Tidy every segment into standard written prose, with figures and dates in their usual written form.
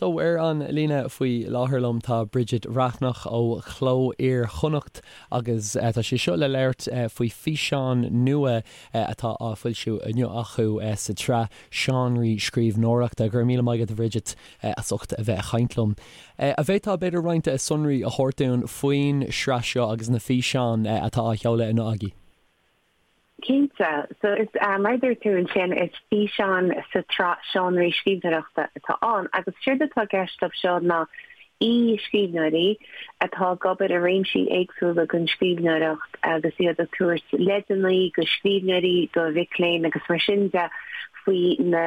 So, ar an líne faoi láthair liom tá Bridget Bhreathnach ó Chló Iar-Chonnacht agus tá sí seo le labhairt faoi físeán nua atá á foilsiú inniu acu sa tsraith Seánraí Scríbhneoireachta. Go raibh míle maith agat a Bhridget as ucht a bheith ag caint liom. An bhféadfá b'fhéidir roinnt sonraí a thabhairt dúinn faoin sraith seo agus na físeáin atá á sheoladh inniu agaibh? Cinnte. So is, mar a dúirt tú ansin, is físeán sa tsraith Seánraí Scríbhneoireachta atá ann agus séard atá i gceist leo seo ná aoi-scríbhneoirí atá ag obair i réimsí éagsúla den scríbhneoireacht agus iad ag tabhairt leideanna do scríbhneoirí, do mhic léinn agus mar sin de faoi na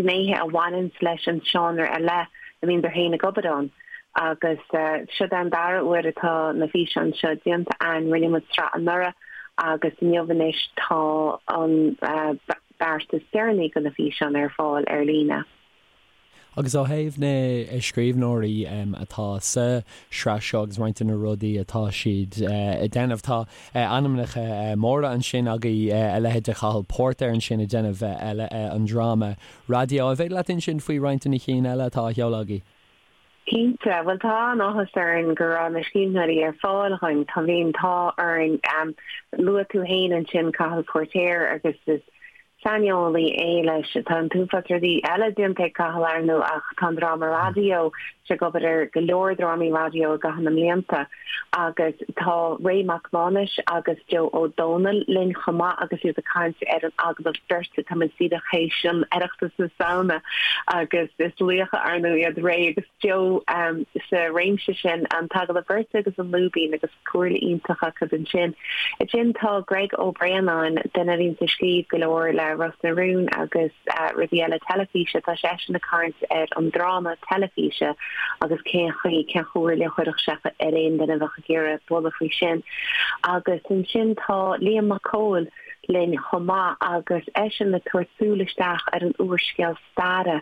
gnéithe a bhaineanns leis an seánra ar leith a mbíodar féin ag obair ann. Agus seod é an dara huair atá na físeáin seo déanta a'ainn. Rinne muid sraith anuraidh agus inniu anois tá an beart is deireanaí de na físeáin ar fáil ar líne. Agus ó thaobh na scríbhneoirí atá sa sraith seo agus roinnt de na rudaí atá siad ag déanamh, tá ainmneacha móra ansin agaibh, a leithéid de Chathal Póirtéir ansin ag déanamh an dráma raidió. An féidir leat insint faoi roinnt de na cinn eile atá á sheoladh agaibh? Cinnte. Bhuel, tá an-áthas orainn go raibh na scríbhneoirí ar fáil dhúinn. Tá, bhí an t-ádh orainn. Luaigh tú féin ansin Cathal Póirtéir agus is saineolaí é leis. Tá an t-uafás rudaí eile déanta ag Cathal, ar ndóigh, ach tá an dráma raidió, sé ag obair ar go leor drámaí raidió i gcaitheamh na mblianta. Agus tá Ray Mac Mánais agus Joe Ó Dónaill linn chomh maith agus iad ag caint ar an agallamh beirte. Tá muid díreach théis an Oireachtas na Samhna agus is laochra ar ndóigh iad Ray agus Joe sa réimse sin, an t-agallamh beirte agus an lúibín agus comhairle iontach acu ansin. Ansin tá Greg Ó Braonáin, duine a bhíonns ag scríobh go leor le Ros na Rún agus rudaí eile teilifíse, tá seisean ag caint ar an dráma teilifíse agus cén chaoi, cén chomhairle a chuirfeadh sé ar aon duine a bheadh ag iarraidh bualadh faoi sin. Agus ansin tá Liam Mac Cóil linn chomh maith agus eisean ag tabhairt súil isteach ar an úrscéal staire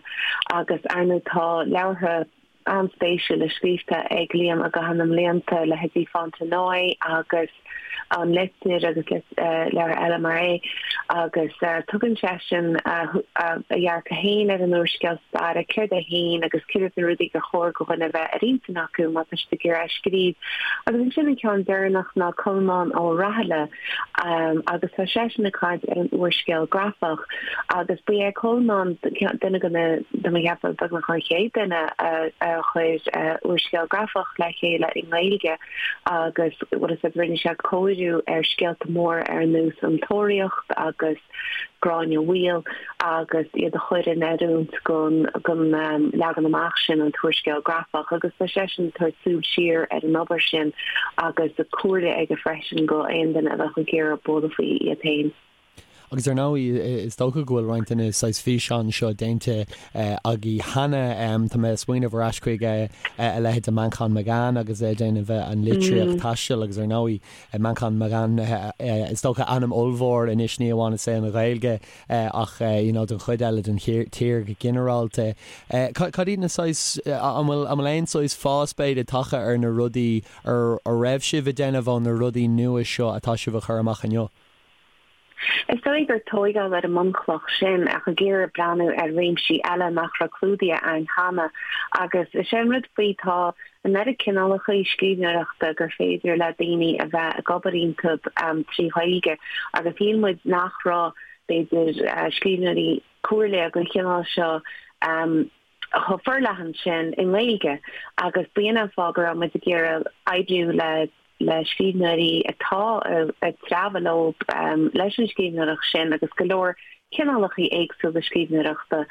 agus ar ndóigh tá leabhartha an-spéisiúla scríofa ag Liam i gcaitheamh na mblianta, leithéidí Fontenoy agus An Litir agus leabhartha eile mar é, agus tugann seisean a dhearcadh féin ar an úrscéal staire, céard é féin agus céard iad na rudaí gur chóir do dhuine a bheith ar intinn acu má tá siad ag iarraidh a scríobh. Agus ansin an ceann deireanach ná Colmán Ó Rathaille agus tá seisean ag caint ar an úrscéal grafach agus ba é Colmán duine de na, de mo cheapadh, beagnach an chéad duine a chuir úrscéal grafach le chéile i nGaeilge. agus bhfuil a fhios agat rinne sé cóiriú ar scéalta móra ar nós An Tóraíocht agus Gráinne Mhaol agus iad a chur in oiriúint don leagan amach sin, an t-úrscéal grafach, agus tá seisean ag tabhairt súil siar ar an obair sin agus comhairle aige freisin do aon duine a bheadh ag iarraidh bualadh faoi iad féin. Agus ar ndóigh, is dócha go bhfuil roinnt de na saghas físeáin seo déanta agaibh cheana. Tá mé ag smaoineamh ar ais chuig a leithéid de Manchán Magan agus é ag déanamh an litríocht taistil agus ar ndóigh Manchán Magan is dócha ainm ollmhór anois ní amháin i saol na Gaeilge ach you know don chuid eile den tír go ginearálta. Cad iad na saghas, an bhfuil an bhfuil aon saghas fás b'fhéidir tagtha ar na rudaí a raibh sibh ag déanamh ó na rudaí nua seo atá sibh a chur amach inniu? Is dóigh gur tóigeáil ar an mbunchloch sin ach ag iarraidh breathnú ar réimsí eile nach raibh clúdaithe a'ainn cheana. Agus is é an rud faoi, tá an oiread cineálacha scríbhneoireachta gur féidir le daoine a bheith ag obair iontu trí Ghaeilge agus shíl muid nach raibh, b'fhéidir, scríbhneoirí comhairle den chineál seo chomh forleathan sin i nGaeilge agus b'in an fáth go raibh muid ag iarraidh oibriú le le scríbhneoirí atá ag treabhadh leo leis an scríbhneoireacht sin agus go leor cineálacha éagsúla scríbhneoireachta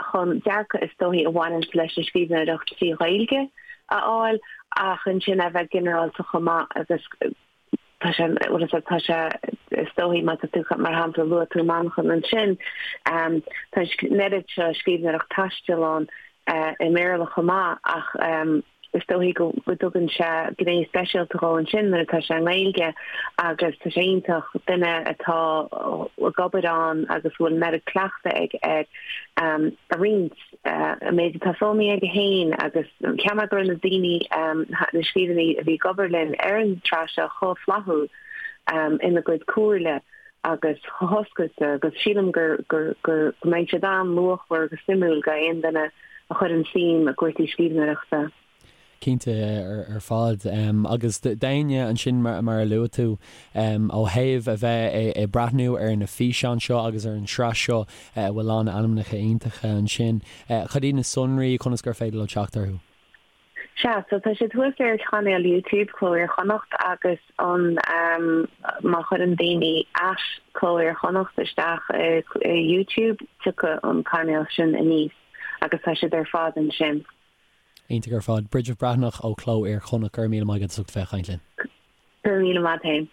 chun dearcadh is dóichí a bhaineanns leis an scríbhneoireacht trí Ghaeilge a fháil ach ansin a bheith ginearálta chomh maith agus tá sé, bhfuil a fhios agat, tá sé, is dóichí má tá tú, mar shampla, luaigh tú Manchán ansin, tá an oiread seo scríbhneoireacht taistil ann i mBéarla chomh maith ach is dóichí go dtugann sé gné speisialta dhó ansin nuair atá sé i nGaeilge agus tá sé iontach duine atá ag obair ann agus a bhfuil an oiread cleachtaidh aige air a roinnt an méid atá foghlamtha aige féin agus cheap mé go raibh na daoine, na scríbhneoirí a bhí ag obair linn ar an tsraith seo chomh flaithiúil ina gcuid comhairle agus chomh hoscailte agus sílim gur, gur, gur, go mbeidh siad an-luachmhar agus suimiúil do aon duine. a chuireann suim i gcúrsaí scríbhneoireachta. Cinnte ar fad. Agus d'éinne ansin mar a luaigh tú, ó thaobh a bheith ag breathnú ar na físeáin seo agus ar an tsraith seo a bhfuil lán ainmneacha iontacha ansin, cad iad na sonraí, conas gur féidir leo teacht orthu? Sea, so tá siad thuas ar chainéal YouTube Cló Iar-Chonnacht agus an má chuireann daoine at Cló Iar-Chonnacht isteach i YouTube tiocfaidh an cainéal sin aníos agus tá siad ar fad ansin. Iontach ar fad. Bridget Breathnach ó Cló Iar-Chonnacht, go raibh míle maith agat as ucht bheith ag caint linn. Go raibh míle maith féin.